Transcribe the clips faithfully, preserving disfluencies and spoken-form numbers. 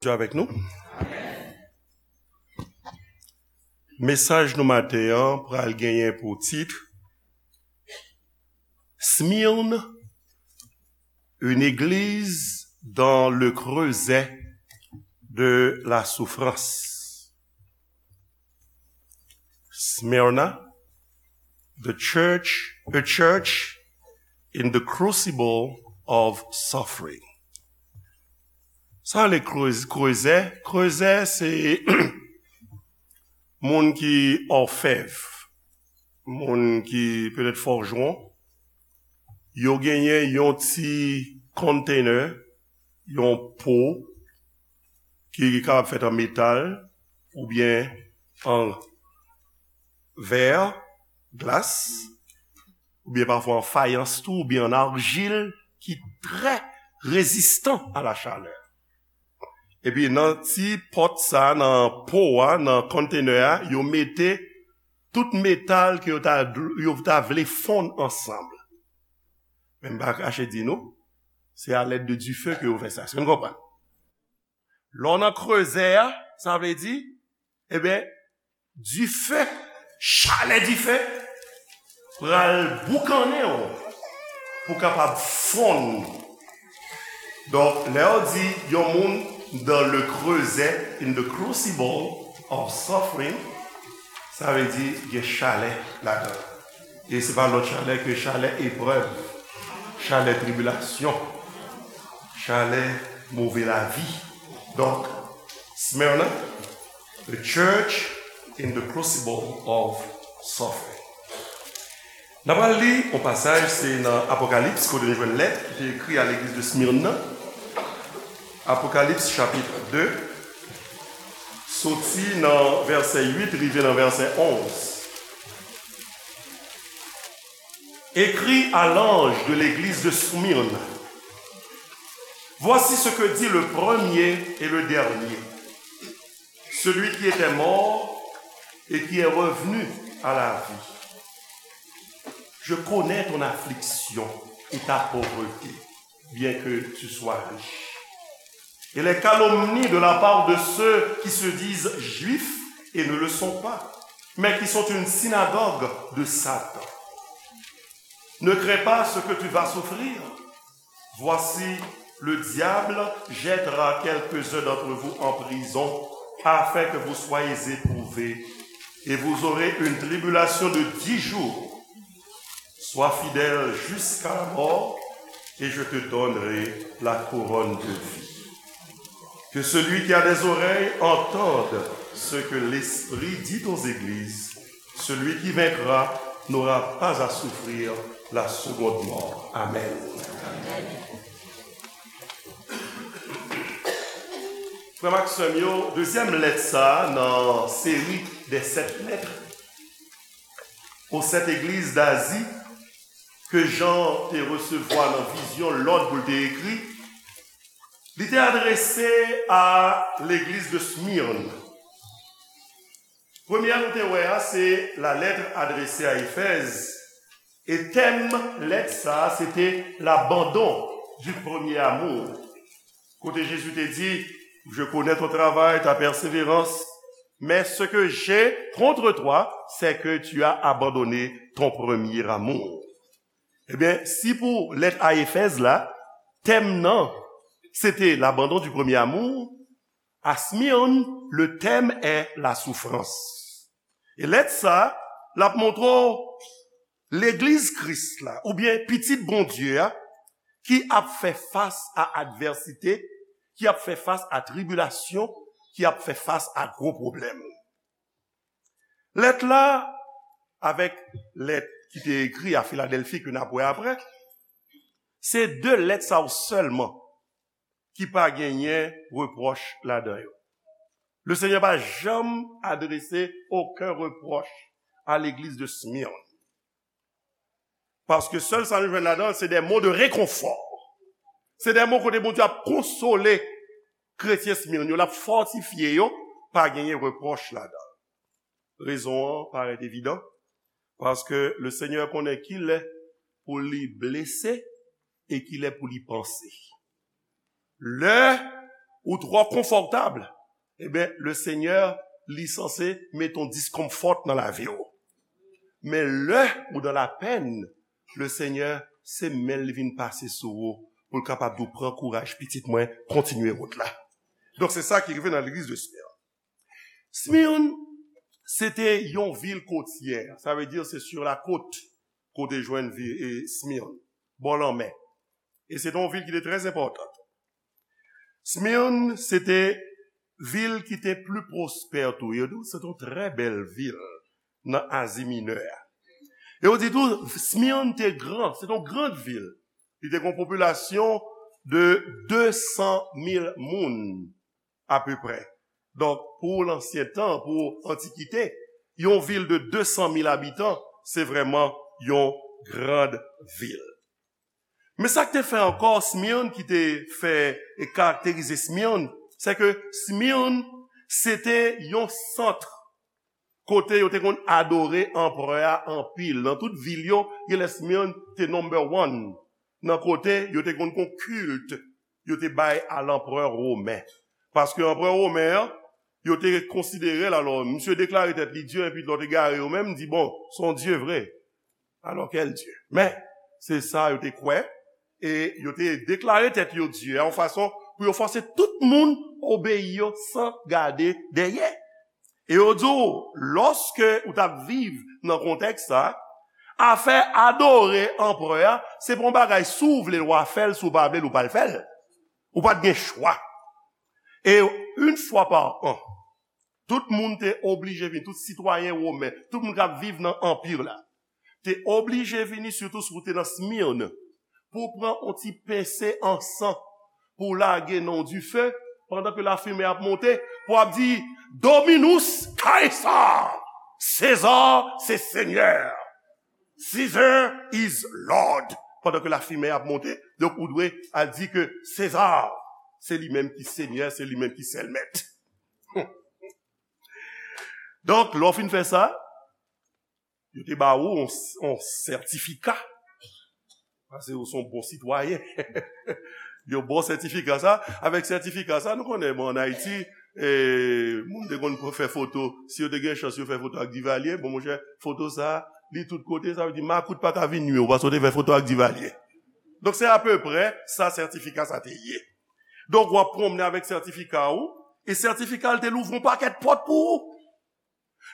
Bondye avèk nou. Mesaj nou maten an pral genyen pou tit Smyrne, une église dans le creuset de la souffrance. Smyrna, the church, a church in the crucible of suffering. Sa le krezè, krezè, krezè se moun ki òfèv, moun ki petèt fòjwon, yo genyen yon ti container, yon po ki kapab fèt an metal oubyen an vè, glas, oubyen pafwa an fayans tou, oubyen an arjil ki trè rezistan a la chalè. Epi nan ti pòt sa, nan po a, nan container a, yo mete tout metal ke yo ta, yo ta vle fonn ansanm. Men m pa kache di nou, se a lèd de dife ke yo fè sa. Èske nou konprann? Lè w nan krezè a, sa vle di, ebyen, dife, chalè dife, pral boukannen w pou kapab fonn. Donk, lè yo di yon moun dans le creuset, in the crucible of suffering, sa vle di gen chalè ladan. E se pa lòt chalè ke chalè eprèv, chalè tribilasyon, chalè move lavi. Donk, Smyrna, the church in the crucible of suffering. N ap al li yon pasaj, se nan Apokalips, kote nou jwenn lèt ki te ekri a legliz de Smyrne nan. Apokalips chapit de, soti nan vèsè uit rive nan vèsè onz. Écris à l'ange de l'église de Smyrne. Voici ce que dit le premier et le dernier, celui qui était mort et qui est revenu à la vie. Je connais ton affliction et ta pauvreté, bien que tu sois riche, et les calomnies de la part de ceux qui se disent juifs et ne le sont pas, mais qui sont une synagogue de Satan. Ne crains pas ce que tu vas souffrir. Voici, le diable jettera quelques-uns d'entre vous en prison, afin que vous soyez éprouvés, et vous aurez une tribulation de dix jours. Sois fidèle jusqu'à la mort, et je te donnerai la couronne de vie. Que celui qui a des oreilles entende ce que l'Esprit dit aux églises. Celui qui vaincra n'aura pas à souffrir la seconde mort. Amen. Frè m ak sè m yo, dezyèm lèt sa a nan seri de sèt lèt aux sept églises d'Asie ke Jan te resevwa nan vizyon lòd pou l te ekri, li te adrese a legliz de Smyrne. Premye a nou te wè a, se la lettre adressée à Éphèse. E tèm lèt sa a, se te l'abandon du premier amour. Kote Jezi te di, je connais ton travail, ta persévérance, mais ce que j'ai contre toi, c'est que tu as abandonné ton premier amour. Ebyen, si pou lèt a Efèz la, tèm nan, se te l'abandon du premier amour, à Smyrne, le thème est la souffrance. E lèt sa, l ap montre w legliz Kris la, oubyen pitit Bondye a, ki ap fè fas a advèsite, ki ap fè fas a tribilasyon, ki ap fè fas a gwo pwoblèm. Lèt la, avèk lèt ki te ekri a Filadèlfi ke n ap wè apre, se de lèt sa yo sèlman ki pa genyen repwòch ladan yo. Le Seigneur pa janm adrese okenn repwòch a legliz de Smyrne. Paske sèl sa nou jwenn ladan, se de mo de rekonfò. Se de mo kote Bondye ap konsole kretyen Smyrne yo, l ap fòtifye yo, pa genyen repwòch ladan. Rezon an parèt evidan, paske le Seigneur konnen ki lè pou li blese e ki lè pou li panse. Lè ou twò konfòtab, ebyen, le Senyè, li sanse met yon discomfort nan lavi w. Men lè ou nan lapenn, le Senyè, se men li vin pase sou ou, pou l kapab di w, pran kouraj, pitit mwen, kontinye wout la. Donk, se sa ki rive nan legliz de Smyrne. Smyrne, se te yon vil kotyè. Sa vle di, se sur la côte, kote jwenn vi, e, Smyrne, bò lanmè. E se te yon vil ki te trè enpòtan. Smyrne, se te vil ki te pli pwospè tou. Yo di w, se te yon trè bèl vil nan Azi Minè a. E yo di tou, Smyrne te gran, se te yon gran vil. Li te gen yon popilasyon de de san mil moun, apeprè. Donk, pou lansyen tan, pou antikite, yon vil de de san mil abitan, se vrèman yon gran vil. Men sa k te fè ankò Smyrne, ki te fè e karakterize Smyrne, se ke Smyrne, se te yon sant kote yo te konn adore anperè a anpil. Nan tout vil yo, genlè Smyrne te number one nan kote yo te konn gon kilt yo te bay a lanperè women. Paske anperè women an, yo te konsidere l, alò, misye deklare tèt li dye, epi lòt egare yo menm di, bon, se yon dye vre. Alò, kèl dye? Men, se sa yo te kwè, e yo te deklare tèt yo dye, a yon fason pou yo fòse tout moun obeyi yo san gade dèyè. E yo di w, lòske ou t ap viv nan kontèks sa, afè adore anperè a, se pa yon bagay, si w vle l, w a fè l, si w pa vle l, ou pa l fè l. Ou pa t gen chwa. E yon fwa pa an, tout moun te oblije vini, tout sitwayen women, tout moun k ap viv nan anpi la, te oblije vini, sitou si w te nan Smyrne, pou w pran yon ti pense ansan, pou w lage nan yon dife, pandan ke lafimen ap monte, pou w ap di, Dominus Caesar, César se senyè, Caesar is Lord. Pandan ke lafimen ap monte, donk ou dwe al di ke Seza, se li menm ki senyè, se li menm ki sèl mèt. Donk, lè w fin fè sa, yo te ba ou yon, yon sètifika. Paske ou se yon bon sitwayen. Yo ba w sètifika sa. Avèk sètifika sa, nou konnen, bon, ann Ayiti, e, moun te konn fè foto. Si yo te gen chans, yo fè foto ak Divalye. Bon, monchè, foto sa, li tout kote, sa vle di makout pa ka vin nwi w, paske w te fè foto ak Divalye. Donk, se apeprè sa sètifika sa te ye. Donk, w ap pwonmnen avèk sètifika ou, e sètifika l te louvri yon pakèt pòt pou ou.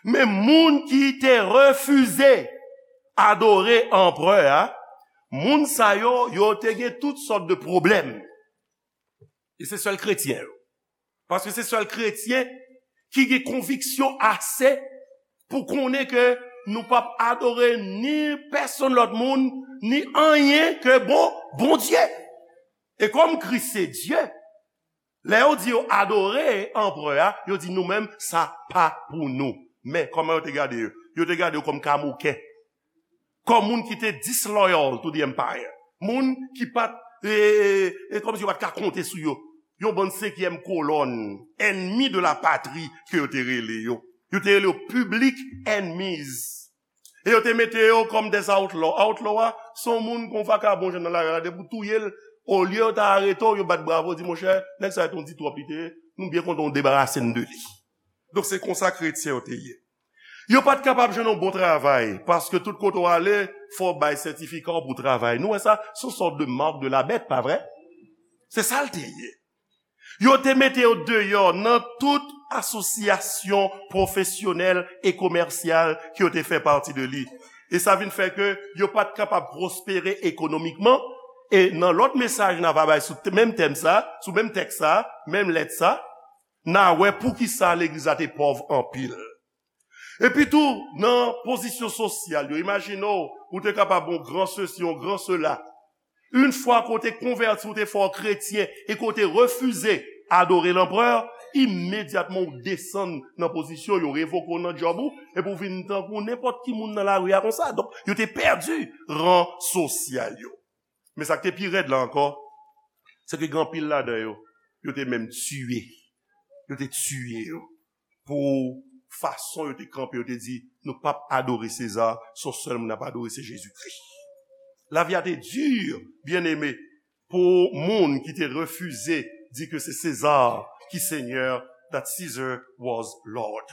Men moun ki te refize adore anperè a, moun sa yo, yo te gen tout sòt de pwoblèm. E se sèl kretyen yo. Paske se sèl kretyen ki gen konviksyon ase pou konnen ke nou p ap adore ni pèsonn lòt moun, ni anyen ke bon, Bondye. E kòm Kris se Dye, lè yo di yo adore anperè a, yo di nou menm, sa pa pou nou. Men, kòman yo te gade yo? Yo te gade yo kòm kamoken. Kòm moun ki te disloyal to the empire. Moun ki pa t, e, e, e, kòmsi yo pa t ka konte sou yo. Yon bann senkyèm kolòn, enmi de la patri ke yo te rele yo. Yo te rele yo public enemies. E yo te mete yo kòm des outlaws. Outlaw a, se yon moun kon vakabon jwenn nan lari a, depi w touye l, olye yo ta arete w, yo bat bravo, di, monchè, nèg sa a te yon di twòp li te ye, nou byen kontan w debarase n de li. Donk, se konsa kretyen yo te ye. Yo pa t kapab jwenn yon bon travay, paske tout kote w ale, fò w bay sètifika w pou w travay. Nou wè sa, se yon sòt de mark de la bèt, pa vre? Se sa l te ye. Yo te mete yo deyò nan tout asosyasyon pwofesyonèl e komèsyal ke yo te fè pati de li. E sa vin fè ke yo pa t kapab pwospere ekonomikman. E nan lòt mesaj n a va bay sou t-, menm tèm sa, sou menm tèks sa, menm lèt sa, n a wè poukisa legliz la te pòv anpil. Epi tou, nan pozisyon sosyal yo, imajine w, ou te kapab yon gran sesi, yon gran sela. Yon fwa ke w te konvèti, ou te fè w kretyen, e ke w te refize adore lanperè, imedyatman ou desann nan pozisyon, yo revoke w nan djòb ou, epi w vin tankou nenpòt ki moun nan lari a konsa. Donk, yo te pèdi ran sosyal yo. Men sa k te pi rèd la ankò, se ke gen anpil ladan yo, yo te menm tiye. Yo te tiye yo. Pou fason yo te kanpe, yo te di, nou p ap adore Seza, se yon sèl moun n ap adore, se Jezikri. Lavi a te di, byeneme, pou moun ki te refize di ke se Seza ki senyè, that Caesar was Lord.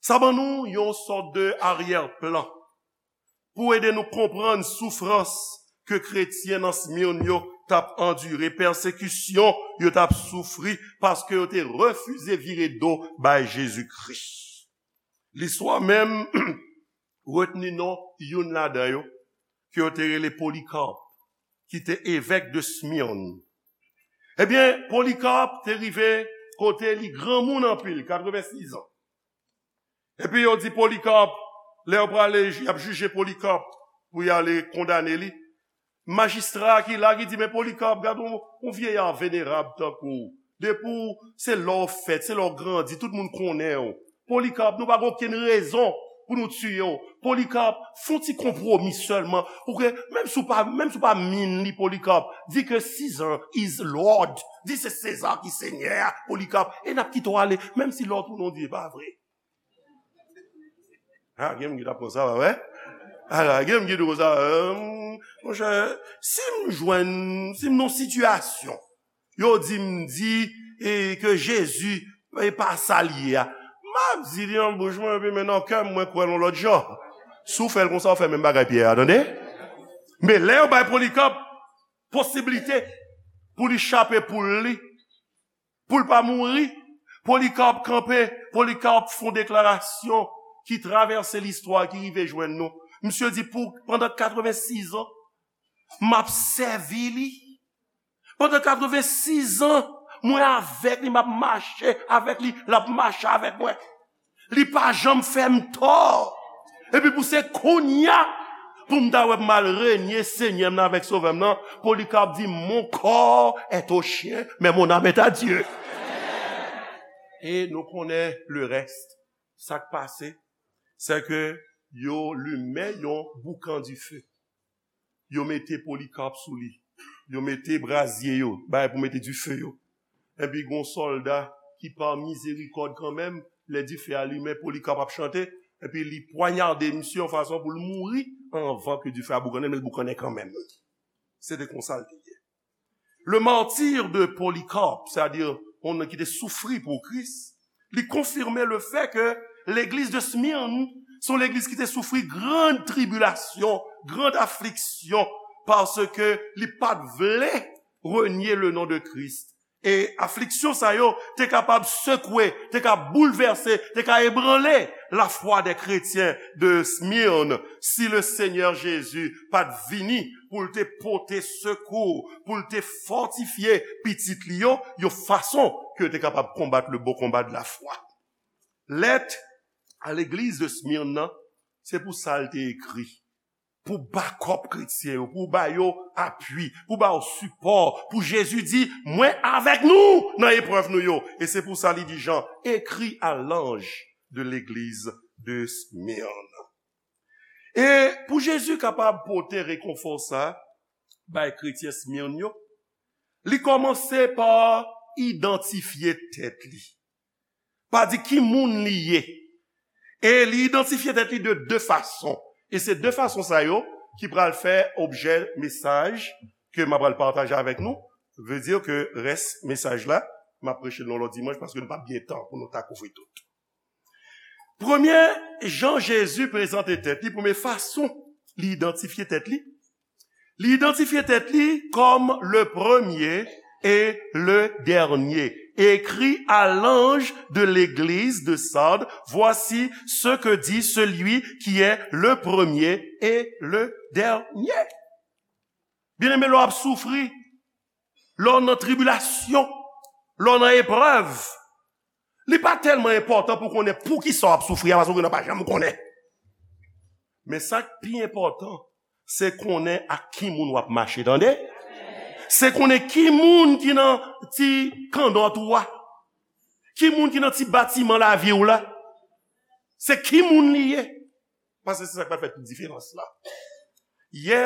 Sa ban nou yon sòt de aryè plan pou ede nou konprann soufrans ke kretyen nan Smyrne yo t ap andire, pèsekisyon yo t ap soufri paske yo te refize vire do bay Jezi Kris. Listwa menm retni non youn ladan yo, ke yo te rele Polycarpe, ki te evèk de Smyrne. Ebyen, Polycarpe te rive kote li granmoun anpil, katrevensis an. Epi yo di Polycarpe, lè yo prale, y ap jije Polycarpe pou y ale kondane li. Majistra ki la, ki di, "Men Polycarpe, gad yon, yon vyeyè venerab tankou w. Depi w, se la w fèt, se la w grandi, tout moun konnen w. Polycarpe, nou pa gen okenn rezon pou nou tiye w. Polycarpe, fè yon ti konpwomi sèlman. Ou ke, menm si w pa, menm si w pa min li, Polycarpe, di ke Caesar is Lord. Di se Seza ki senyè, Polycarpe. E n ap kite w ale, menm si lè w tounen w di e pa vre." A, gen moun ki t ap pran sa, pa vre? Ala, gen moun ki di konsa, "Monchè, si m jwenn, si m nan sitiyasyon, yo di m di, e, ke Jezi, e pa sa l ye a, m ap di li nan bouch mwen, epi men nan kè m, mwen kwè l yon lòt jan." Si w fè l konsa, w fè menm bagay Pyè a, tande? Men lè yo bay Polycarpe posiblite pou li chape poul li, pou l pa mouri, Polycarpe kanpe, Polycarpe fè yon deklarasyon ki travèse listwa, ki rive jwenn nou. Misye di, "Pou, pandan katrevensis an, m ap sèvi li. Pandan katrevensis an, mwen avèk li, m ap mache avèk li, l ap mache avèk mwen. Li pa janm fè m tò. Epi pou se kounye a, pou m ta wè m al renye Senyè m nan avèk Sovè m nan, Polycarpe di, mon corps est aux chiens, mais mon âme est à Dieu." E nou konnen le reste. Sa k pase, se ke yo limen yon boukan dife. Yo mete Polycarpe sou li. Yo mete brazye yo, bagay pou mete dife yo. Epi gon sòlda ki pa mizerikòd kanmenm, lè dife a limen, Polycarpe ap chante, epi li pwanyade misye yon fason pou l mouri anvan ke dife a boukannen, men l boukannen kanmenm. Se te konsa l te ye. Le martyre de Polycarpe, sètadi yon moun ki te soufri pou Kris, li konfime le fè ke legliz de Smyrne se yon legliz ki te soufri gran tribilasyon, gran afliksyon, paske li pa t vle renye le non de Kris. E afliksyon sa yo te kapab sekwe, te ka boulvèse, te ka ebranle lafwa dè kretyen de Smyrne si le Senyè Jezi pa t vini pou l te pote sekou, pou l te fòtifye pitit li yo, yon fason ke yo te kapab konbat le bon combat de la foi. Lèt a legliz de Smyrne nan, se pou sa l te ekri. Pou bakòp kretyen yo, pou ba yo apui, pou ba yo sipò, pou Jezi di, "Mwen avèk nou nan eprèv nou yo." E se pou sa li di Jan, écrit à l'ange de l'église de Smyrne. E pou Jezi kapab pote rekonfò sa bay kretyen Smyrne yo, li kòmanse pa idantifye tèt li, pa di ki moun li ye. E li idantifye tèt li de de fason. E se de fason sa yo ki pral fè objè mesaj ke m ap pral pataje avèk nou. Vle di ke rès mesaj la, m ap preche l yon lòt dimanch paske nou p ap gen tan pou nou ta kouvri tout. Premye jan Jezi prezante tèt li, premye fason li idantifye tèt li, li idantifye tèt li kòm le premier et le dernier. Écrit à l'ange de l'église de Sardes, voici ce que dit celui qui est le premier et le dernier. Byeneme, lè w ap soufri, lè w nan tribilasyon, lè w nan eprèv, li pa tèlman enpòtan pou konnen poukisa w ap soufri a, paske w pa janm konnen. Men sa k pi enpòtan, se konnen ak ki moun w ap mache, tande? Se konnen ki moun ki nan ti kandòt ou a, ki moun ki nan ti batiman lavi w la. Se ki moun li ye. Paske se sa k pral fè tout diferans la. Yè,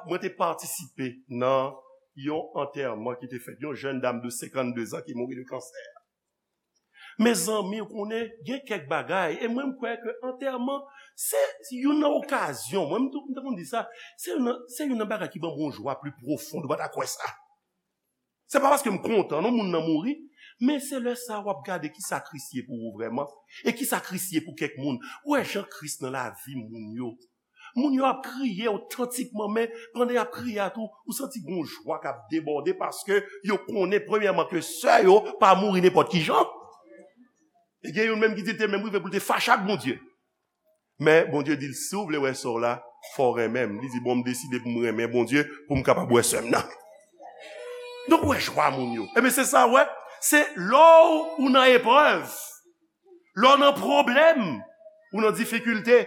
mwen te patisipe nan yon antèman ki te fèt, yon jèn dam de senkannde zan ki mouri de kansè. Mezanmi, ou konnen, gen kèk bagay, e mwen, m kwè ke antèman, se youn nan okazyon, mwen, m tou, m te konn di sa, se youn nan, se youn nan bagay ki ban m yon jwa pli pwofon, ou pa ta kwè sa. Se pa paske m kontan non moun nan mouri, men se lè sa w ap gade ki sa Kris ye pou ou vrèman, e ki sa Kris ye pou kèk moun. Ou wè jan Kris nan lavi moun yo. Moun yo ap kriye otantikman, men pandan y ap kriye a tou, ou santi gon jwa k ap debòde paske yo konnen premyèman ke sè yo pa mouri nenpòt ki jan. E gen youn menm ki di l te menm rive pou l te fache ak Bondye. Men Bondye di l, "Si w vle wè sè w la, fò w renmen m." Li di, "Bon, m deside pou m renmen Bondye, pou m kapab wè sè m nan." Donk, ou wè jwa moun yo. Ebyen, se sa, w wè. Se lè w, ou nan eprèv, lè w nan pwoblèm, ou nan difikilte,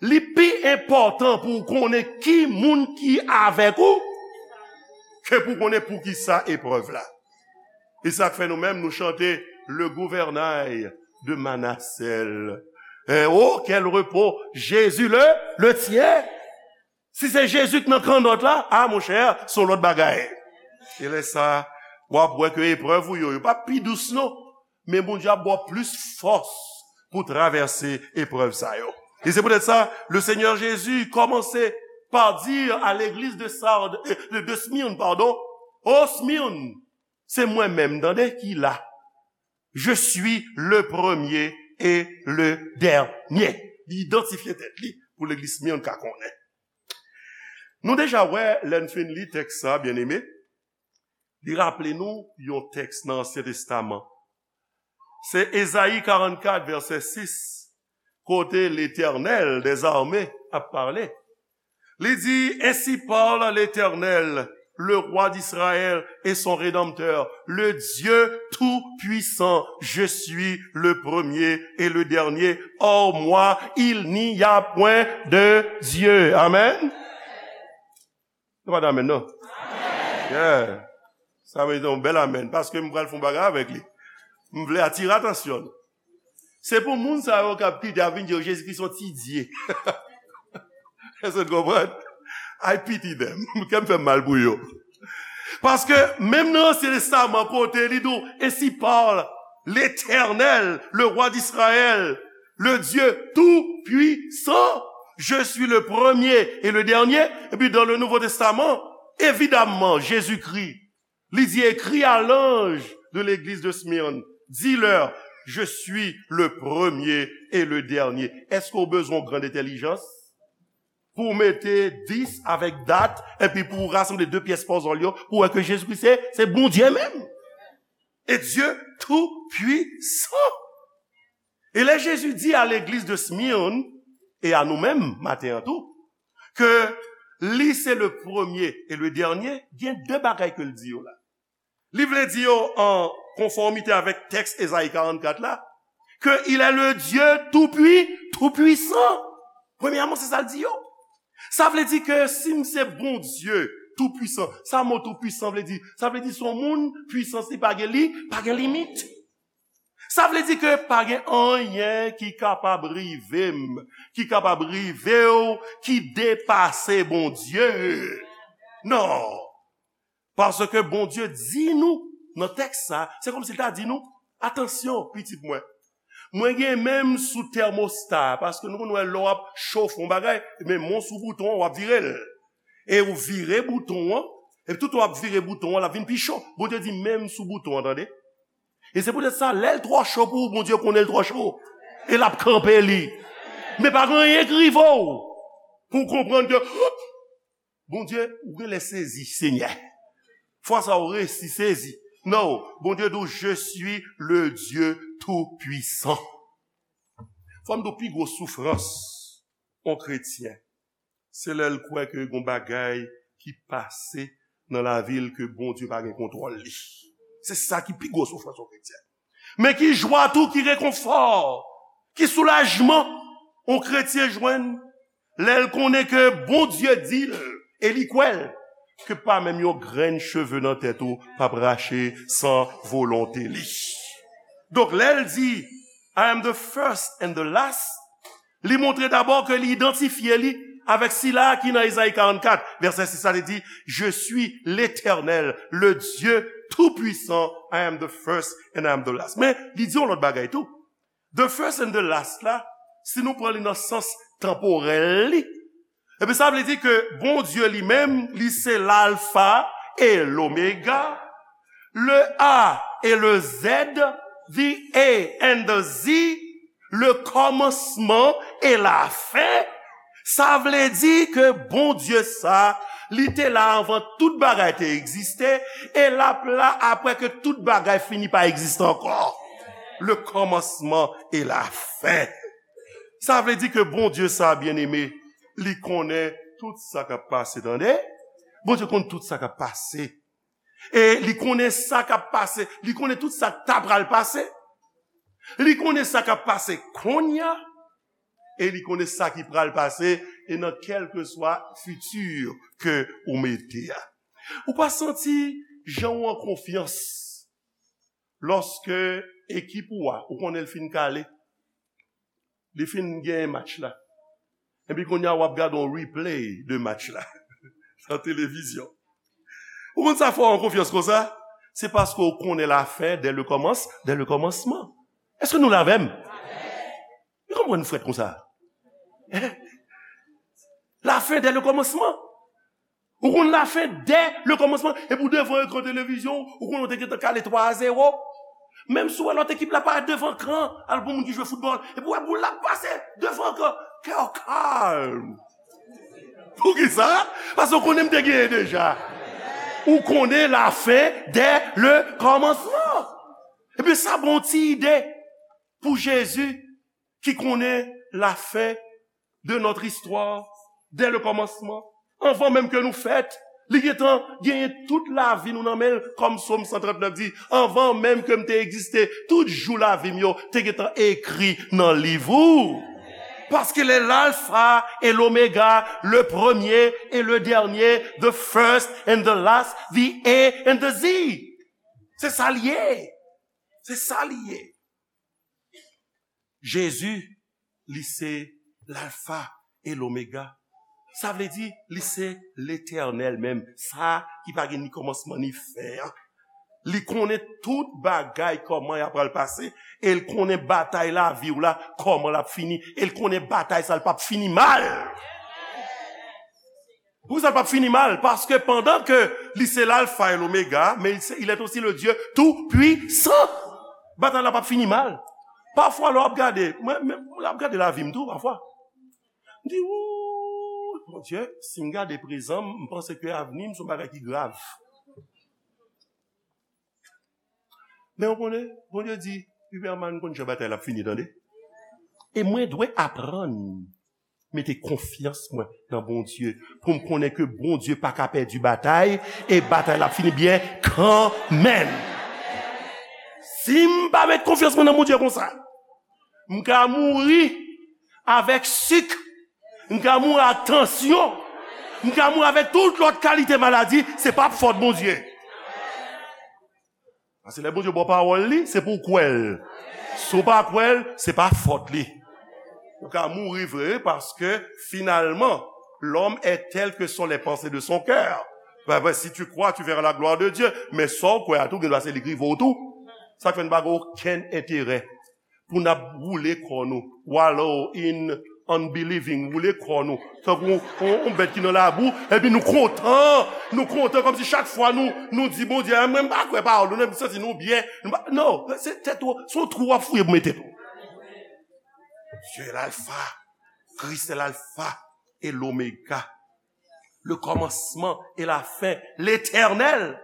li pi enpòtan pou w konnen ki moun ki avèk ou, ke pou w konnen poukisa eprèv la. E sa k fè nou menm, nou chante le gouvernail de Manasèl. Hein, oh, quel repos, Jésus le, le tient. Si se Jezi k nan kannòt la, a, monchè, se yon lòt bagay. E lè sa, w ap wè ke eprèv ou yo, yo pa pi dous non. Men Bondye ap ba w plis fòs pou travèse eprèv sa yo. E se poutèt sa, le Seigneur Jésus kòmanse pa di a legliz de Sarde, de, de Smyrne, pardon, "O Smyrne, se mwen menm, tande, ki la. Je suis le premier et le dernier." Li idantifye tèt li pou legliz Smyrne ka konnen. Nou deja wè, lè n fin li tèks sa, byeneme, li raple nou yon tèks nan Ansyen Testaman. Se Ezayi karannkat, vèsè sis, kote Letènèl dèzame ap pale. Li di, "Ainsi parle l'Éternel, le roi d'Israël et son Rédempteur, le Dieu tout-puissant, je suis le premier et le dernier, hors moi, il n'y a point de Dieu." Amen. Nou pa di amen, non? Yeah. Sa merite yon bèl amen, paske m pral fè yon bagay avèk li. M vle atire atansyon nou. Se pou moun sa yo k ap kite ap vin di yo Jezi Kris yon ti dye. Èske w konprann? I pity them. Kè m fè m mal pou yo. Paske menm nan Ansyen Testaman, kote li di w, "Ainsi parle l'Éternel, le roi d'Israël, le Dieu tout-puissant, je suis le premier et le dernier." Epi dans le Nouveau Testament, évidemment, Jésus-Christ, li di, "Écris à l'ange de l'église de Smyrne, dis-leur, je suis le premier et le dernier." Èske w bezwen yon grand entèlijans pou w mete dis avèk dat, epi pou w rasanble de pyès pòzòl yo, pou w wè ke Jezikri se, se Bondye menm? E Dye tou pwisan. E lè Jezi di a legliz de Smyrne, e a nou menm, maten an tou, ke li se le premye e le dènye, gen de bagay ke l di yo la. Li vle di yo an konfòmite avèk tèks Ezayi karannkat la, ke il est le Dieu tout pui-, tout puissant. Premyèman, se sa l di yo. Sa vle di ke si m se Bondye tou pwisan, sa mo tou pwisan vle di? Sa vle di se yon moun, pwisans li pa gen li, pa gen limit. Sa vle di ke pa gen anyen ki kapab rive m, ki kapab rive w, ki depase Bondye. Non. Paske Bondye di nou, nan tèks sa, se kòmsi l ta di nou, "Atansyon, pitit mwen. Mwen gen men m sou tèmosta a," paske nou konn wè lè w ap chofe yon bagay, men men w sou bouton an, w ap vire l. E ou vire bouton an, epi toutan w ap vire bouton an, l ap vin pi cho. Bondye di, "Men m sou bouton an, tande." E se poutèt sa, lè l twò cho pou ou, Bondye konnen l twò cho. E l ap kanpe li. Men pa gen anyen k rive w pou w konprann ke, Bondye, ou genlè sezi, Senyè. Fwa sa ou resi sezi. Non, Bondye di w, "Je suis le Dieu tout-puissant." Fò m di w pi gwo soufrans yon kretyen, se lè l kwè ke gon bagay ki pase nan lavi l ke Bondye pa gen kontwòl li. Se sa ki pi gwo soufrans yon kretyen. Men ki jwa tou, ki rekonfò, ki soulajman yon kretyen jwenn lè l konnen ke Bondye di l, e li kwè l, ke pa menm yon grenn cheve nan tèt ou p ap rache san volonte li. Donk, lè l di, "I am the first and the last," li montre dabò ke li idantifye li avèk sila a ki nan Ezayi karannkat, vèsè sis la, li di, "Je suis l'Éternel, le Dieu tout-puissant, I am the first and I am the last." Men, li di yon lòt bagay tou. The first and the last la, si nou pran li nan sans tanporèl li, epi sa vle di ke Bondye li menm, li se Lalfa e Lomega. Le A et le Z, the A and the Z, le kòmansman e lafen, sa vle di ke Bondye sa, li te la anvan tout bagay te egziste, e l ap la apre ke tout bagay fini pa egziste ankò. Le kòmansman e lafen. Sa vle di ke Bondye sa, byeneme, li konnen tout sa k ap pase, tande? Bondye konn tout sa k ap pase. E li konnen sa k ap pase. Li konnen tout sa k ta pral pase. Li konnen sa k ap pase kounye a. E li konnen sa ki pral pase. E nan kèlkeswa fiti ke ou mete a. Ou pa santi jan w an konfyans lòske ekip ou a, ou konnen l fin kale. Li fin genyen match la. Epi kounye a w ap gade yon replay de match la nan televizyon. Ou konn sa fè w an konfyans konsa? Se paske w konnen lafen dè le kòmans, dè le kòmansman. Èske nou la avè m? Ou konprann frèt konsa? Lafen dè le kòmansman. Ou konn lafen dè le kòmansman. Epi w devan ekran televizyon, ou konnen w te gentan kale twa a zewo. Menm si w wè lòt ekip la parèt devan ekran, al pou moun ki jwe foutbòl. Epi w wè boul la ap pase devan ekran. Kè w kalm. Poukisa? Paske w konnen m te genyen deja. Ou konnen lafen dè le kòmansman. Ebyen, sa ba w ti ide pou Jezi ki konnen lafen de notre histoire dès le commencement. Anvan menm ke nou fèt, li gentan genyen tout lavi nou nan men l, kòm Sòm san trant nèf di, anvan menm ke m te egziste, tout jou lavi m yo te gentan ekri nan liv ou. Parce qu'il est l'alpha et l'oméga, le premier et le dernier, the first and the last, the A and the Z. Se sa l ye. Se sa l ye. Jezi, li se l'alpha et l'oméga. Sa vle di, li se Letènèl menm, sa ki pa gen ni kòmansman ni fen an. Li konnen tout bagay, kòman y ap pral pase, e l konnen batay lavi w la, kòman l ap fini, e l konnen batay sa l p ap fini mal. Poukisa l p ap fini mal? Paske pandan ke li se l'alpha et l'oméga, men il se- il est aussi le Dieu tout-puissant. Batay la p ap fini mal. Pafwa, lè w ap gade, mwen, mwen, lè w ap gade lavi m tou, pafwa, m di, "Wouy, Bondye, si m gade prezan m, m panse ke avni m se yon bagay ki grav." Men w konnen, Bondye di, "Iberman, m konn jan batay la ap fini, tande. E mwen dwe aprann mete konfyans mwen nan Bondye, pou m konnen ke Bondye pa ka pèdi batay, e batay la ap fini byen kanmenm." Si m pa met konfyans mwen nan Bondye konsa, m ka mouri avèk sik, m ka mouri ak tansyon, m ka mouri avèk tout lòt kalite maladi, se pa fòt Bondye. Paske lè Bondye ba w pawòl li, se pou w kwè l. Si w pa kwè l, se pa fòt li. Ou ka mouri vre, paske finalman, l'homme est tel que sont les pensées de son cœur. Ben, ben, si tu crois, tu verras la gloire de Dieu. Men sa w kwè a tou, gen dwa se li k rive w tou. Sa k fè n pa gen okenn enterè pou n ap woule kò nou, wallow in unbelieving, woule kò nou tankou yon, yon, yon bèt ki nan labou, epi nou kontan, nou kontan kòmsi chak fwa nou, nou di Bondye, "A, mwen m pa kwè pawòl ou, nou santi nou byen." Nou pa, non, se tèt ou, se yon twou w ap fouye pou mete tèt ou. Dieu est l'alpha, Christ est l'alpha et l'oméga, le commencement et la fin, l'Éternel.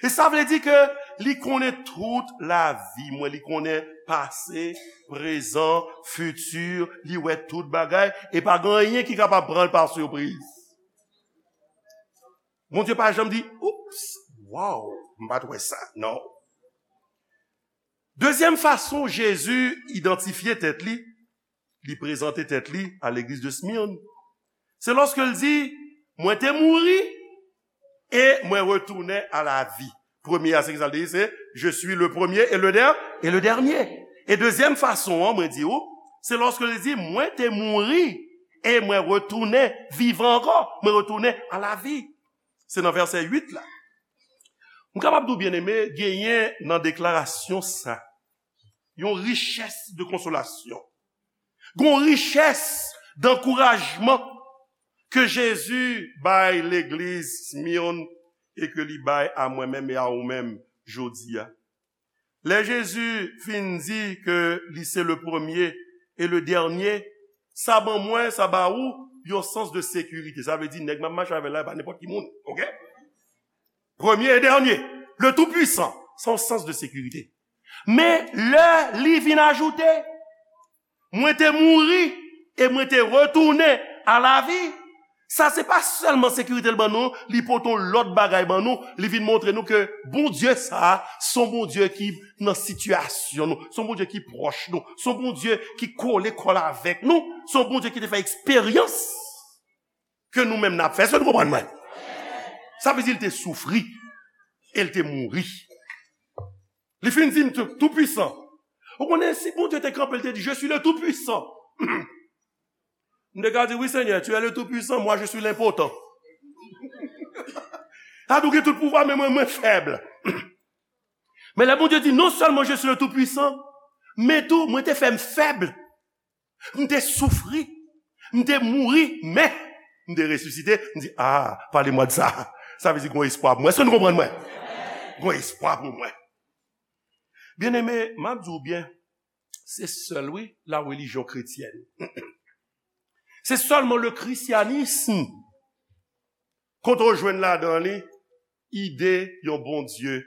E sa vle di ke li konnen tout lavi mwen, li konnen pase, prezan, fiti, li wè tout bagay, e pa gen anyen ki kapab pran l pa sipriz. Bondye pa janm di, "Oups, wow, m pa t wè sa." Non. Dezyèm fason Jezi idantifye tèt li, li prezante tèt li a legliz de Smyrne, se lòske l di, "Mwen te mouri e mwen retounen a lavi." Premye a, se ki sa l te di, se, "Je suis le premier et le der-, et le dernier." E dezyèm fason an, mwen di ou, se lòske l di, "Mwen te mouri e mwen retounen vivan ankò, mwen retounen a lavi." Se nan vèsè uit la. M kapab di w, byeneme, genyen nan deklarasyon sa yon richès de konsolasyon. Gon richès dankourajman ke Jezi bay legliz Smyrne e ke li bay a mwen menm e a ou menm jodi a. Lè Jezi fin di ke li se le premye e le dènye, sa ban mwen, sa ba ou yon sans de sekirite. Sa vle di nèg m ap mache avè l la, e pa nenpòt ki moun. Oke? Premye e dènye, le Tout-Puissant, se yon sans de sekirite. Men lè li vin ajoute, mwen te mouri e mwen te retounen a lavi. Sa se pa sèlman sekirite l ban nou, li pote yon lòt bagay ban nou, li vin montre nou ke Bondye sa a, se yon Bondye ki nan sitiyasyon nou, se yon Bondye ki pwòch nou, se yon Bondye ki kole kò l avèk nou, se yon Bondye ki te fè eksperyans ke nou menm n ap fè. Èske nou konprann mwen? Sa vle di l te soufri e l te mouri. Li fin di m tou, tou pwisan. Ou konnen, si Bondye te kanpe, l te di, "Je suis le Tout-Puissant." M te ka di, "Oui, Seigneur, tu es le Tout-Puissant, moi, je suis l'impotent." Sa tou gen tout pouvwa, men mwen, mwen fèb. Men lè Bondye di, "Non sèlman je suis le Tout-Puissant, men tou, mwen te fè m fèb." M te soufri, m te mouri, men m te resisite. M di, "Ah, parlez-moi de ça." Sa vle di gon espwa pou mwen. Èske nou konprann mwen? Gon espwa pou mwen. Byeneme, m ap di w byen, se sèl, wi, la religion chrétienne. Se sèlman le christianisme kote w jwenn ladan li ide yon Bondye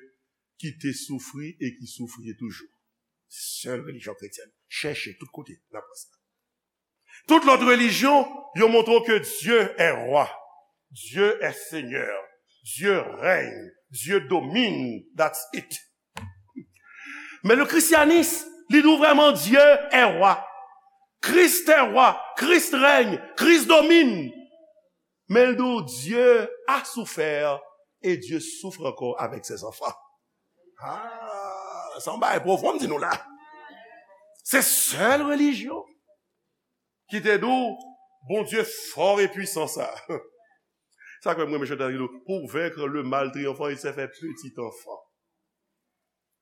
ki te soufri e ki soufri toujou. Sèl relijyon kretyèn. Chèche tout kote, n ap wè sa. Tout lòt relijyon, yo montre w ke Dieu est roi, Dieu est Seigneur, Dieu règne, Dieu domine, that's it. Men le christianisme, li di w vrèman Dieu est roi, Christ est roi, Christ règne, Christ domine. Men l di w, Dieu a souffert et Dieu souffre encore avec ses enfants. Ah, sa yon bagay pwofon m di nou la. Se sèl relijyon ki te di w, Bondye fò e pwisan sa. Sa k fè m renmen chante a ki di w, pour vaincre le mal triomphant, il s'est fait petit enfant.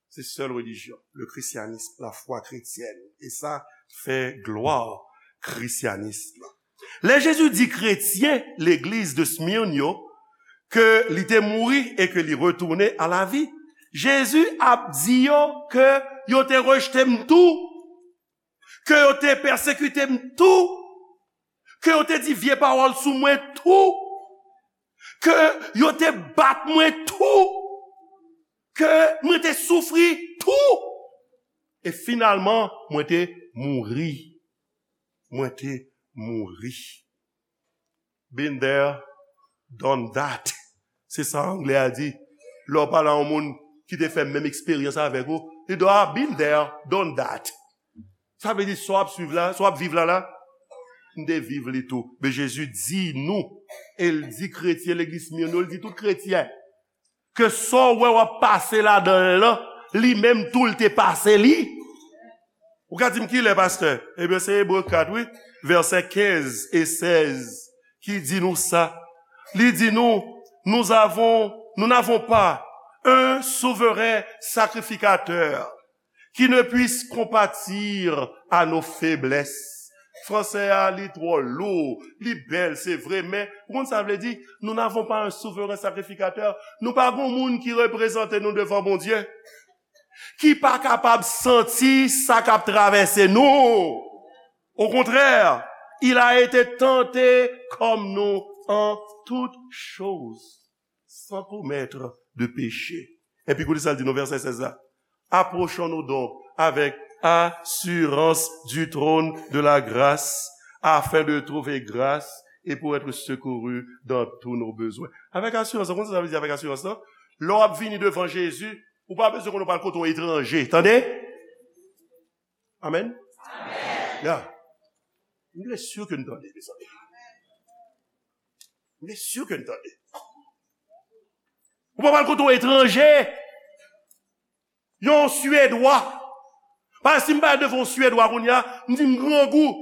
Se sèl relijyon, le christianisme, la foi chrétienne. E sa fè glwa christianisme. Lè Jezi di kretyen legliz de Smyrne yo ke li te mouri e ke li retounen a lavi, Jezi ap di yo ke yo te rejte m tou, ke yo te pèsekite m tou, ke yo te di vye pawòl sou mwen tou, ke yo te bat mwen tou, ke mwen te soufri tou, e finalman, mwen te mouri. Mwen te mouri. Been there, done that. Se sa anglè a di. Lè w pale a yon moun ki te fè menm eksperyans avèk ou, li di, "Ah, been there, done that." Sa vle di, sa w ap swiv la, sa w ap viv la, la, m te viv li tou. Men Jezi di nou, e l di kretyen legliz Smyrne yo, l di tout kretyen, ke sa w wè w ap pase ladan l lan, li menm tou l te pase li. Ou ka di m kilè, pastè? Ebyen, se Ebre kat, wi, vèsè kenz e sèz ki di nou sa. Li di nou, nous avons, nous n'avons pas un souverain sacrificateur qui ne puisse compatir à nos faiblesses. Fransè a, li twò lou, li bèl, se vre, men ou konn sa vle di? Nous n'avons pas un souverain sacrificateur. Nou pa gon moun ki reprezante nou devan Bondye, ki pa kapab santi sa k ap travèse nou. Au contraire, il a été tenté comme nous en toutes choses, sans commettre de péché. Epi koute sa l di nou, vèsè sèz la. Approchons-nous donc avec assurance du trône de la grâce, afin de trouver grâce et pour être secourus dans tous nos besoins. Avèk asirans, ou konn sa sa vle di avèk asirans lan? Lè w ap vini devan Jezi, ou pa bezwen konn ou pral kote yon etranje. Tande? Amèn? Amèn. Ya. M vle si ke n tande, mezanmi. M vle si ke n tande. Ou pa pral kote yon etranje. Yon Swedwa. Paske si m pale devan yon Swedwa kounye a, m di m grangou.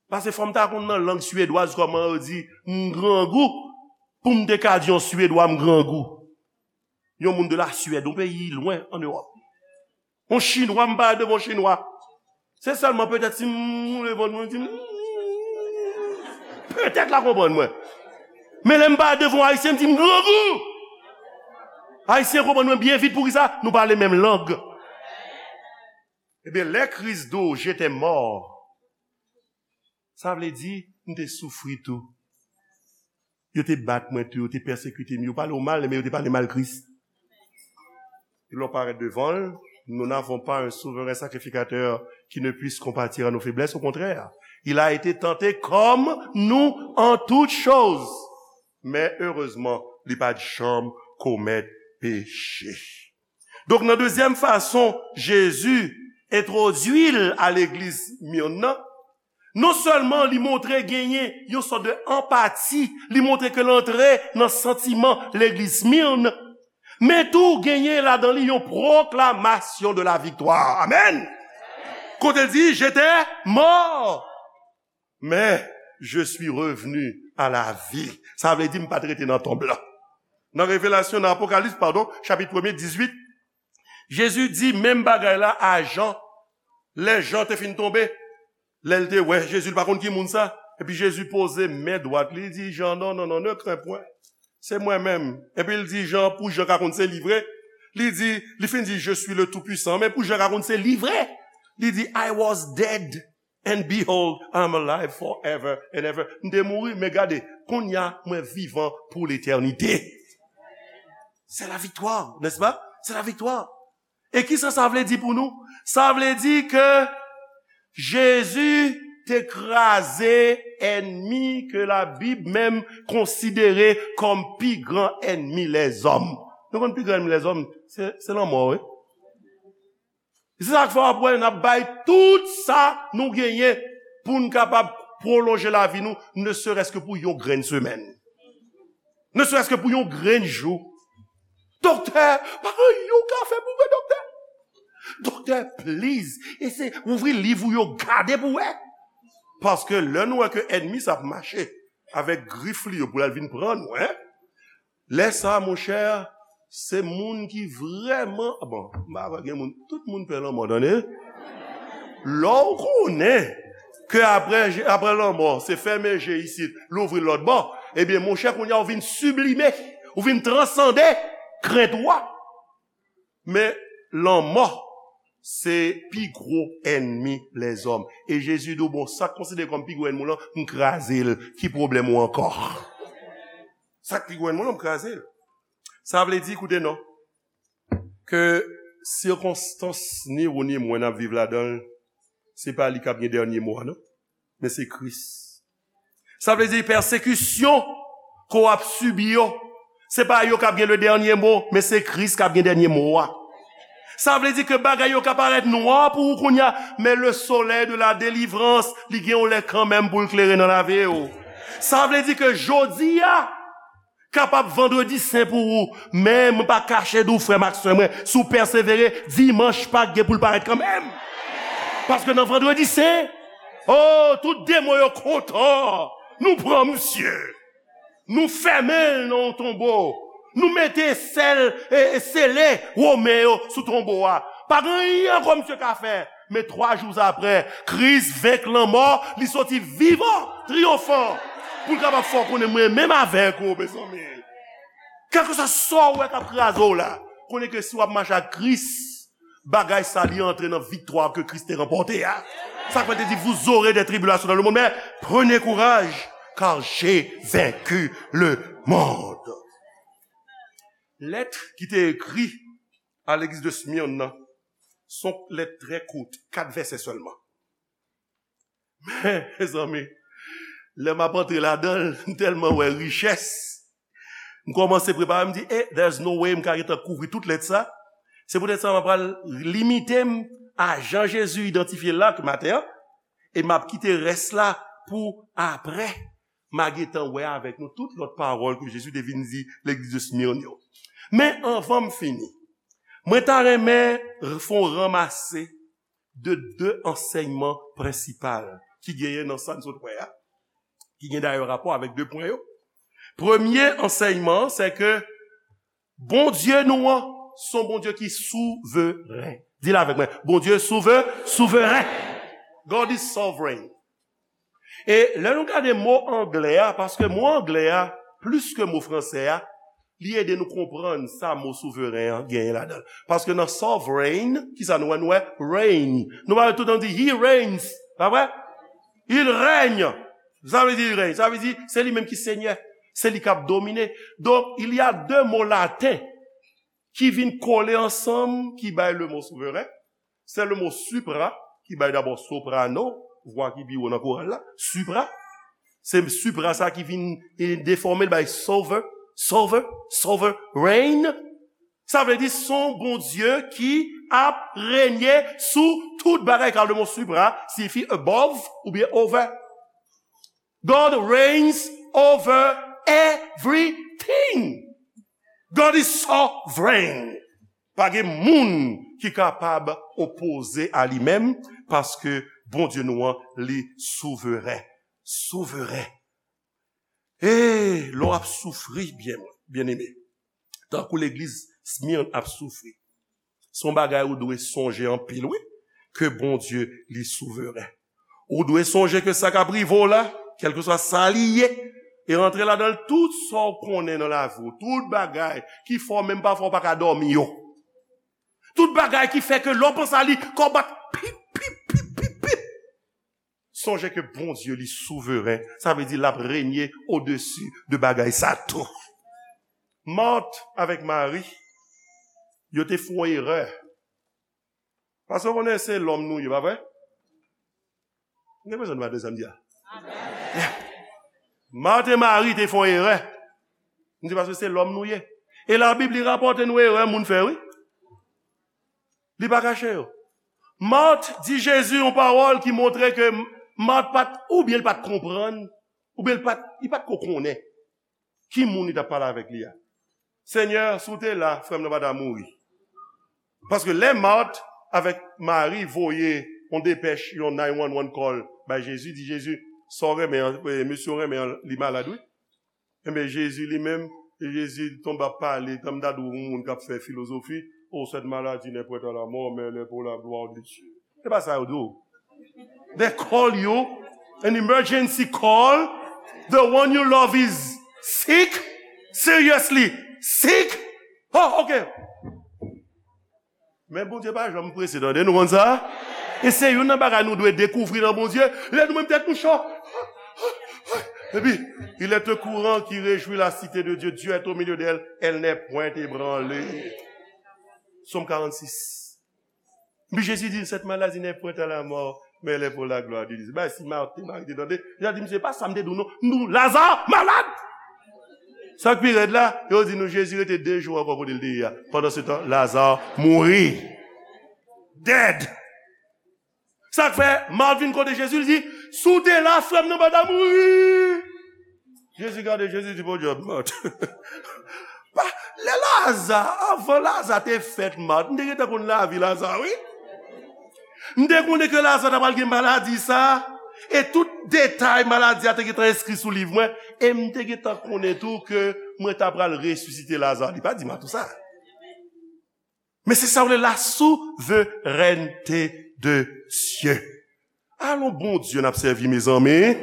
Paske fò m ta konn nan lang swedwaz kòman yo di m grangou, pou m te ka di yon Swedwa m grangou. Yon moun de la Suède, yon peyi lwen an Ewòp. Yon Chinwa, m pale devan yon Chinwa. Se sèlman petèt si m woule vant mwen, m di, petèt l a konprann mwen. Men lè m parèt devan yon Ayisyen, m di, "M grangou." Ayisyen konprann mwen byen vit. Poukisa? Nou pale menm lang. Ebyen, lè Kris di w, "J'étais mort," sa vle di, m te soufri tou. Yo te bat mwen tou, yo te pèsekite m, yo pale w mal, men yo te pale mal Kris. E lè w parèt devan l, nous n'avons pas un souverain sacrificateur qui ne puisse compatir à nos faiblesses, au contraire. Il a été tenté comme nous en toutes choses, men erezman, li pa t janm komèt peche. Donk, nan dezyèm fason, Jezi entwodui l a legliz Smirn nan, non sèlman li montre genyen yon sòt de anpati, li montre ke l antre nan santiman legliz Smirn, men tou genyen ladan li yon pwoklamasyon de la viktwa. Amèn! Kote l di, "J'étais mort, mais je suis revenu à la vie." Sa vle di, "M pa t rete nan tonb lan." Nan Revelasyon, nan Apokalips, padon, chapit premye, dizuit, Jezi di menm bagay la a Jan, lè Jan te fin tonbe. Lè l te wè Jezi, li pa konn ki moun sa. Epi Jezi poze men dwat li, li di Jan, "Non, non, non, ne crains point. Se mwen menm." Epi l di Jan, pou Jan ka konn se li vre, li di, li fin di, "Je suis le Tout-Puissant," men pou Jan ka konn se li vre, li di, "I was dead, and behold, I am alive forever and ever." M te mouri, men gade, kounye a, mwen vivan pou letènite. C'est la victoire, n'est-ce pas? C'est la victoire. E kisa sa vle di pou nou? Sa vle di ke Jezi te kraze ènmi ke Labib menm konsidere kòm pi gran ènmi lèzòm. Nou konn pi gran ènmi lèzòm? Se, se lanmò, wi. Se sa k fè w ap wè n ap bay tout sa nou genyen pou n kapab pwolonje lavi nou, ne serait-ce que pou yon grenn semèn. Ne serait-ce que pou yon grenn jou. Doktè, pa gen anyen w ka fè pou mwen, doktè. Doktè, please, eseye ouvri liv ou yo, gade pou wè. Paske lè nou wè ke ènmi sa ap mache avèk grif li yo pou l al vin pran nou, en, lè sa, monchè, se moun ki vrèman, bon, m pa kwè gen moun, tout moun pè lanmò, tande. Lè w konnen ke apre, apre lanmò, se fèmen je isit, louvri l lòt bò, ebyen, monchè, kounye a, ou vin siblime, ou vin transande krent ou a. Men, lanmò, se pi gwo ènmi lèzòm. E Jezi di w, "Bon, sa k konsidere kòm pi gwo ènmi w lan, m kraze l. Ki pwoblèm ou ankò?" Sa k pi gwo ènmi w lan, m kraze l. Sa vle di, koute non, ke sikonstans ni ou ni mwen n ap viv ladan l, se pa li k ap gen dènye mo a, non. Men se Kris. Sa vle di pèsekisyon ke w ap sibi yo, se pa yo k ap gen le dènye mo, men se Kris k ap gen dènye mo a. Sa vle di ke bagay yo ka parèt nwa pou ou kounye a, men le soleil de la délivrance, li gen yon lè kanmenm pou l klere nan lavi w. Sa vle di ke jodi a kapab vandredi sen pou ou, men mwen pa kache di w, frè m ak sè mwen, si w pèsevere, dimanch Pak gen pou l parèt kanmenm. Paske nan vandredi sen, oh, tout demon yo kontan. Nou pran misye. Nou fèmen l nan yon tonbo. Nou mete sèl e, e sele Women yo sou tonbo a. Pa gen anyen ankò misye ka fè. Men twa jou apre, Kris venk lanmò, li soti vivan, triyonfan. Pou l kapab fè w konnen mwen menm avèk ou, mezanmi. Kèlkeswa sa w wè k ap kraze w la, konnen ke si w ap mache ak Kris, bagay sa li antre nan viktwa ke Kris te ranpòte a. Sa k fè te di, "Vous aurez des tribulations dans le monde, mais prenez courage, car j'ai vaincu le monde." Lèt ki te ekri a legliz de Smyrne nan, se yon lèt trè kout, kat vèsè sèlman. Men, mezanmi, lè m ap antre ladan l, m tèlman wè richès, m kòmanse prepare, m di, "Eh, there's no way m ka gentan kouvri tout lèt sa." Se poutèt sa m ap pral limite m a jan Jezi idantifye l la maten an, e m ap kite rès la pou apre. M a gentan wè avèk nou tout lòt pawòl ke Jezi te vin di legliz de Smyrne yo. Men anvan m fini, mwen ta renmen fè yon ranmase de de ansèyman prensipal ki genyen nan sa n sot wè a, ki gen dayè rapò avèk de pwen yo. Premye ansèyman an, se ke Bondye nou an, se yon Bondye ki souveren. Di l avèk mwen, Bondye souve-, souveren. God is sovereign. E lè nou gade mo anglè a, paske mo anglè a, plis ke mo franse a, li ede nou konprann sa mo souveren an genyen ladan l. Paske nan sovereign, kisa nou wè? Nou wè reign. Nou pa wè tout tan di, "He reigns." Pa vre? Il règne. Sa vle di il règne. Sa vle di se li menm ki senyè. Se li k ap domine. Donk, il y a de mo laten ki vin kole ansanm, ki bay le mo souveren. Se le mo supra, ki bay dabò soprano, vwa ki pi wo nan koral la, supra. Se supra sa ki vin e, defòme l bay sover, sover, sovereign. Sa vle di se yon Bondye ki ap renye sou tout bagay, kar le mo supra siyifi above oubyen over. God reigns over everything. God is sovereign. Pa gen moun ki kapab opoze a li menm, paske Bondye nou an, li souveren. Souveren. E lè w ap soufri, byen, byeneme, tankou legliz Smirn ap soufri, se yon bagay ou dwe sonje anpil, wi, ke Bondye, li souveren. Ou dwe sonje ke sa k ap rive w la, kèlkeswa sa li ye, e rantre ladan l tout sa w konnen nan lavi w, tout bagay ki fè w menm pafwa w pa ka dòmi yo. Tout bagay ki fè ke lè w panse a li, kò w bat pip, pip, pip, pip, pip. Sonje ke Bondye, li souveren. Sa vle di l ap renye odesi de bagay sa tou. Mart avèk Mari, yo te fè yon erè. Paske w konnen se lòm nou ye, pa vre? M gen bezwen nou pa de sa m di a. Mart e Mari te fè yon erè. M di paske se lòm nou ye. E Labib, li rapòte nou erè moun fè, wi. Li pa kache yo. Mart di Jezi yon pawòl ki montre ke Mart pa t, oubyen li pa t konprann, oubyen li pa t, li pa t ko konnen ki moun li t ap pale avèk li a. Senyè, si w te la, frè m nan pa ta mouri. Paske lè Mart avèk Mari voye yon depèch, yon nine one one call bay Jezi, di Jezi, sa w renmen an, e, mesye w renmen an, li malad, wi. Enben, Jezi li menm, Jezi tonbe ap pale, tanm ta di w yon moun k ap fè filozofi, oh, cette maladie n'est point à la mort, mais elle est pour la gloire de Dieu. Se pa sa yo di w. They call you an emergency call. The one you love is sick, seriously sick. Oh, ok. Men Bondye pa janm prese, tande, nou konn sa? E se youn nan bagay nou dwe dekouvri nan Bondye. Lè nou menm tèt nou cho. Epi, il est au courant qui réjouit la cité de Dieu. Dieu est au milieu d'elle. Elle n'est point ébranlée. Sòm karannsis. Epi Jezi di, cette maladie n'est point à la mort, mais elle est pour la gloire de Dieu. Bay si Mari te tande, li ta di, misye, pa sa m te di w non. M di w, Laza malad! Sa k pi rèd la, yo di nou Jezi rete de jou ankò kote l te ye a. Pandan se tan, Laza mouri. Dead. Sa k fè, Mart vin kote Jezi, li di, si w te la, frè m nan pa ta mouri. Jezi gade, Jezi di, podyab, Mart. Pa, lè Laza, anvan Laza te fèt, Mart, m te gentan konn lavi Laza, wi. M te konnen ke Laza ta pral gen maladi sa, e tout detay maladi a te gentan enskri sou liv mwen, e m te gentan konnen tou ke mwen ta pral resisite Laza. Li pa di Mart tou sa. Men se sa w rele la souverènte de Dye. Alon Bondye n ap sèvi, mezanmi.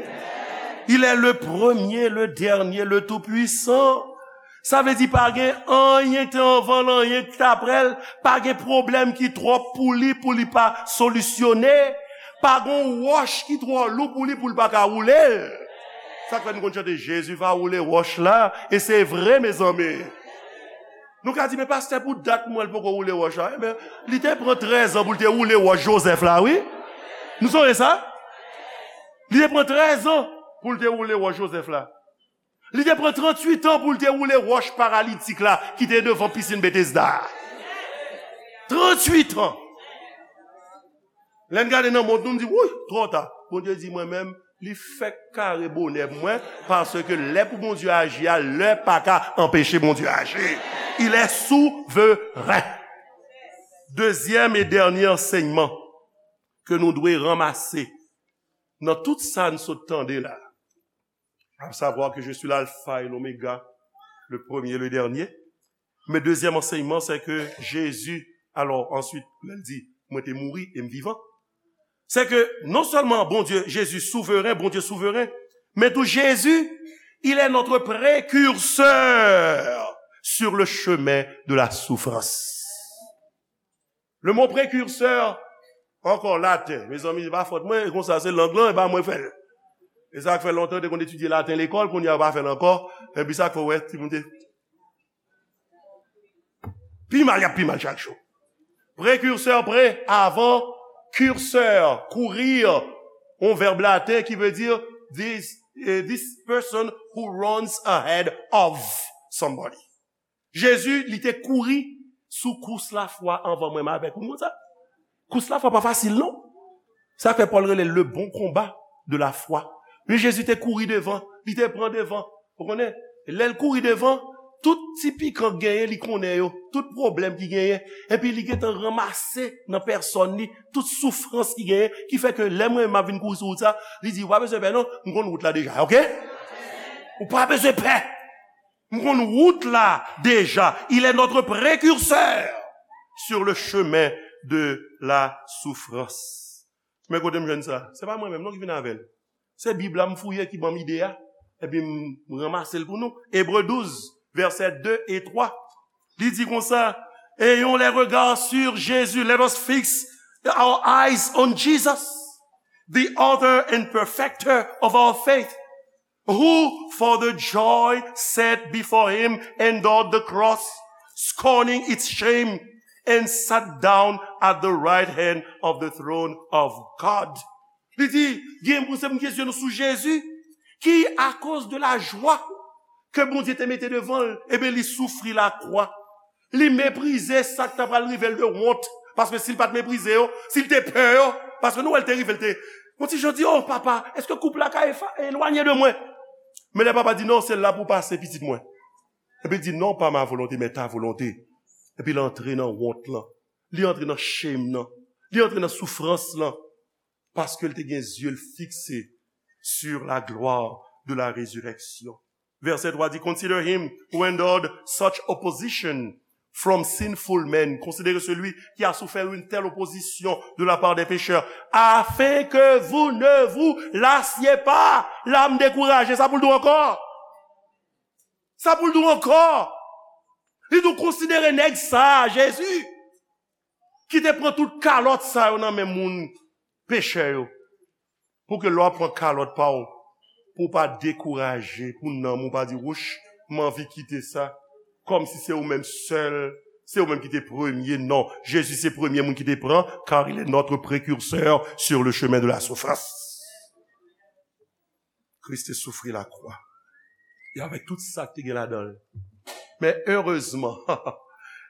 Il est le premier, le dernier, le tout puissant. Sa vle di pa gen anyen ki te anvan l, anyen ki t apre l, pa gen pwoblèm ki twòp pou li, pou li pa solisyone. Pa gen wòch ki twò lou pou li, pou li pa ka woule l. Sa k fè nou konn chante, Jezi va woule wòch la, e se vre, mezanmi. Nou ka di, men pastè, pou dat m wè l poko woule wòch la. Enben, li te pran trèz an pou l te woule wòch Jozèf la, wi. Nou sonje sa? Li te pran trèz an pou l te woule wòch Jozèf la. Li te pran tranntuit an pou l te woule wòch paralitik la ki te devan pisin Betesda a. Tranntuit an. Lè n gade nan mont nou, n di, wouy, twò ta. Bondye di, mwen menm, li fèk kare bonè pou mwen, paske lè pou Bondye aji a, lè pa ka anpeche Bondye aji. Il est souverain. Dezyèm e dènye ansèyman ke nou dwe ranmase nan tout sa n sot tande la, à savoir que je suis l'alpha et l'oméga, le premier et le dernier. Men dezyèm ansèyman, se ke Jezi, alò, answit, lè l di, mwen te mouri e m vivan. Se ke non sèlman Bondye, Jezi souveren, Bondye souveren, men tou Jezi, Il est notre précurseur sur le chemin de la souffrance. Le mot précurseur, ankò laten. Mezanmi, se pa fòt mwen, e konsa se lang lan, e pa mwen fè l. E sa k fè lontan, te konn etidye laten lekòl, kounye a yo pa fè l ankò. Epi sa k fè w wè, timoun te pi mal, y ap pi mal chak jou. Prekirsè, pre, avan, kursè, courir, yon vèb laten ki vle di this, eh, this person who runs ahead of somebody. Jezi, li te kouri sou kous lafwa anvan mwen m avèk ou. Nou konn sa? Kous lafwa pa fasil, non. Sa fè Pòl rele le bon combat de la foi. Men Jezi te kouri devan, li te pran devan. Ou konnen, lè l kouri devan, tout ti pikan k genyen, li konnen yo. Tout pwoblèm ki genyen. Epi li gentan ranmase nan pèsòn li tout soufrans ki genyen, ki fè ke lè mwen m ap vin kouri sou wout sa, li di, "Ou pa bezwen pè non, m konn wout la deja, oke? Ou pa bezwen pè. M konn wout la deja." Il est notre précurseur sur le chemin de la souffrance. Men kote m jwenn sa? Se pa mwen menm non ki vin avè l. Se Bib la m fouye ki ban m ide a. Epi m ranmase l pou nou. Ebre douz, vèsè de e twa. Li di konsa, "Ayons les regards sur Jésus." Let us fix our eyes on Jesus, the author and perfecter of our faith, who for the joy set before him endured the cross, scorning its shame, and sat down at the right hand of the throne of God. Li di, gen pou se pou n gen zye nou sou Jezi, ki, akoz de la jwa ke Bondye te mete devan l, ebyen, li soufri lakwa. Li meprize sa k ta pral rive l de wont. Paske si l pa t meprize yo, si l te pè yo, paske nou wè l te rive, l te yon ti jan di, "O papa, èske koup la ka efa- elwanye de mwen?" Men lè papa di, "Non, se la pou w pase, pitit mwen." Epi l di, "Non, pas ma volonté, mais ta volonté." Epi l antre nan wont lan. Li antre nan shame nan. Li antre nan soufrans lan. Paske l te gen zye l fikse sur la gloire de la résurrection. Vèsè twa di, "Consider him who endured such opposition from sinful men." Considérez celui qui a souffert une telle opposition de la part des pécheurs, afin que vous ne vous lassiez pas. La m dekouraje, sa pou l di w ankò? Sa pou l di w ankò? Li di w konsidere nèg sa a, Jezi, ki te pran tout kalòt sa yo nan men moun pechè yo. Pou ke lè w ap pran kalòt pa w, pou w pa dekouraje, pou nanm ou pa di, "Wouch, m anvi kite sa." Kòmsi se ou menm sèl, se ou menm ki te premye. Non, Jezi se premye moun ki te pran, car il est notre précurseur sur le chemin de la souffrance. Kris te soufri lakwa. E avèk tout sa k te gen ladan l. Men erezman,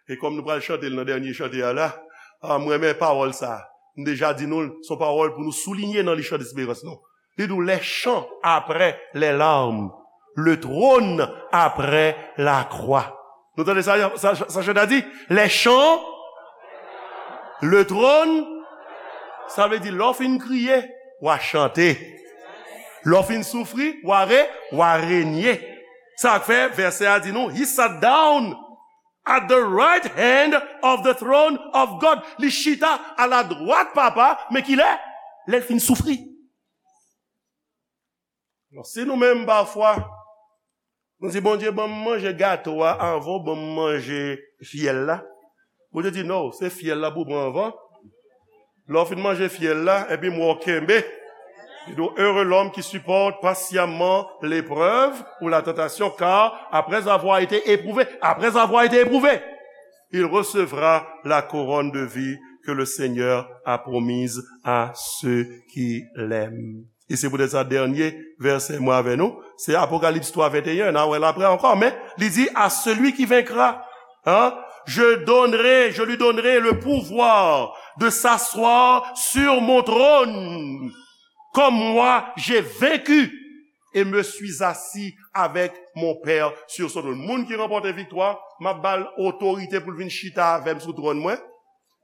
e kòm nou pral chante l nan dènye chante a la, a, m renmen pawòl sa a. M deja di nou l, se yon pawòl pou nou soulinye nan li chan desperans nou. Li di w, les chants après les larmes, le trône après la croix. Nou tande sa, sa, sa chante a di? Les chants, le trône, sa vle di lè w fin kriye, w a chante. Lè w fin soufri, w a re, w a renye. Sa k fè vèsè a di nou, he sat down at the right hand of the throne of God. Li chita a la dwat Papa, men kilè? Lè l fin soufri. Alò, si nou menm pafwa, nou di, "Bondye, ban m manje gato a anvan w ban m manje fyèl la." Bondye di, "Non, se fyèl la pou w pran anvan. Lè w fin manje fyèl la, epi m wè w kenbe." Li di, "Heureux l'homme qui supporte patiemment l'épreuve ou la tentation, car après avoir été éprouvé, après avoir été éprouvé, il recevra la couronne de vie que le Seigneur a promise à ceux qui l'aiment." E se poutèt sa, dènye vèsè mwen avè nou, se Apokalips twa venteyen, n a wè l apre ankò, men li di, "À celui qui vaincra, hein, je donnerai, je lui donnerai le pouvoir de s'asseoir sur mon trône, comme moi j'ai vaincu et me suis assis avec mon Père sur son trône." Moun ki ranpòte viktwa, m ap ba l otorite pou l vin chita avè m sou twòn mwen,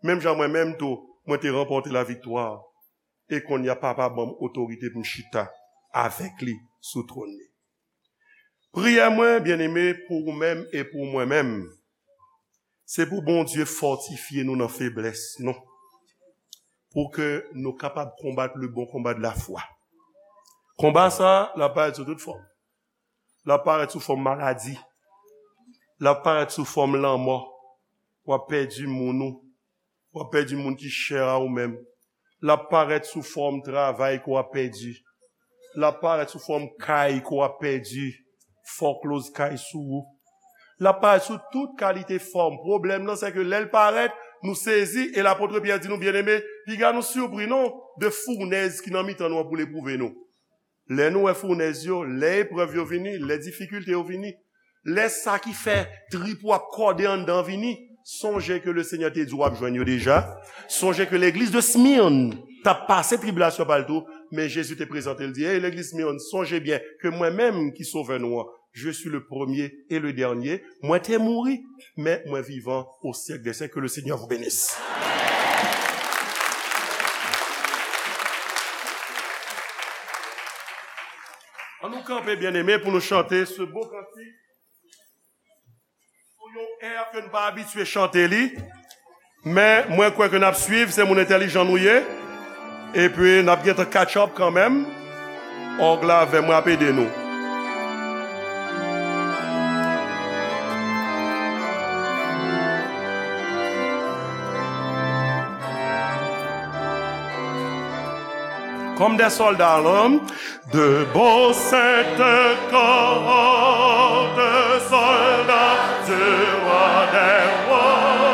menm jan mwen menm tou, mwen te ranpòte laviktwa. E kounye a, Papa ban m otorite pou m chita avèk li sou twòn li. Priyè mwen, byeneme, pou ou menm e pou mwen menm, se pou Bondye fòtifye nou nan feblès nou, pou ke nou kapab konbat le bon combat de la foi. Konba sa a, l ap parèt sou tout fòm. L ap parèt sou fòm maladi. L ap parèt sou fòm lanmò. W ap pèdi moun ou. W ap pèdi moun ki chè a ou menm. L ap parèt sou fòm travay ke w ap pèdi. L ap parèt sou fòm kay ke w ap pèdi. Foreclose kay sou ou. L ap parèt sou tout kalite fòm. Pwoblèm nan, se ke lè l parèt, nou sezi, e lapot Pyè di nou, byeneme, piga nou sipri non, de founèz ki nan mitan nou an pou l epwouve nou. Lè nou wè founèz yo, lè eprèv yo vini, lè difikilte yo vini, lè sa ki fè trip ou ap kòde anndan vini, sonje ke Lesenyè te di w ap jwenn yo deja. Sonje ke legliz de Smyrne t ap pase tribilasyon pa l tou, men Jezi te prezante l di, hey, legliz Smyrne, sonje byen ke mwen menm ki Sovè nou an, je suis le premier et le dernier, mwen te mouri, men mwen vivan au siècle des siècles. Que le Seigneur vous bénisse. An nou kanpe, byeneme, pou nou chante se bo kantik sou yon è ke n pa abitye chante li. Men mwen kwè ke n ap swiv, se moun entèlijan nou ye. Epi n ap gentan catch up kanmenm. Òg la avè mwen ap ede nou. Comme des soldats à l'arme, de beaux saints corps de soldats du roi des rois.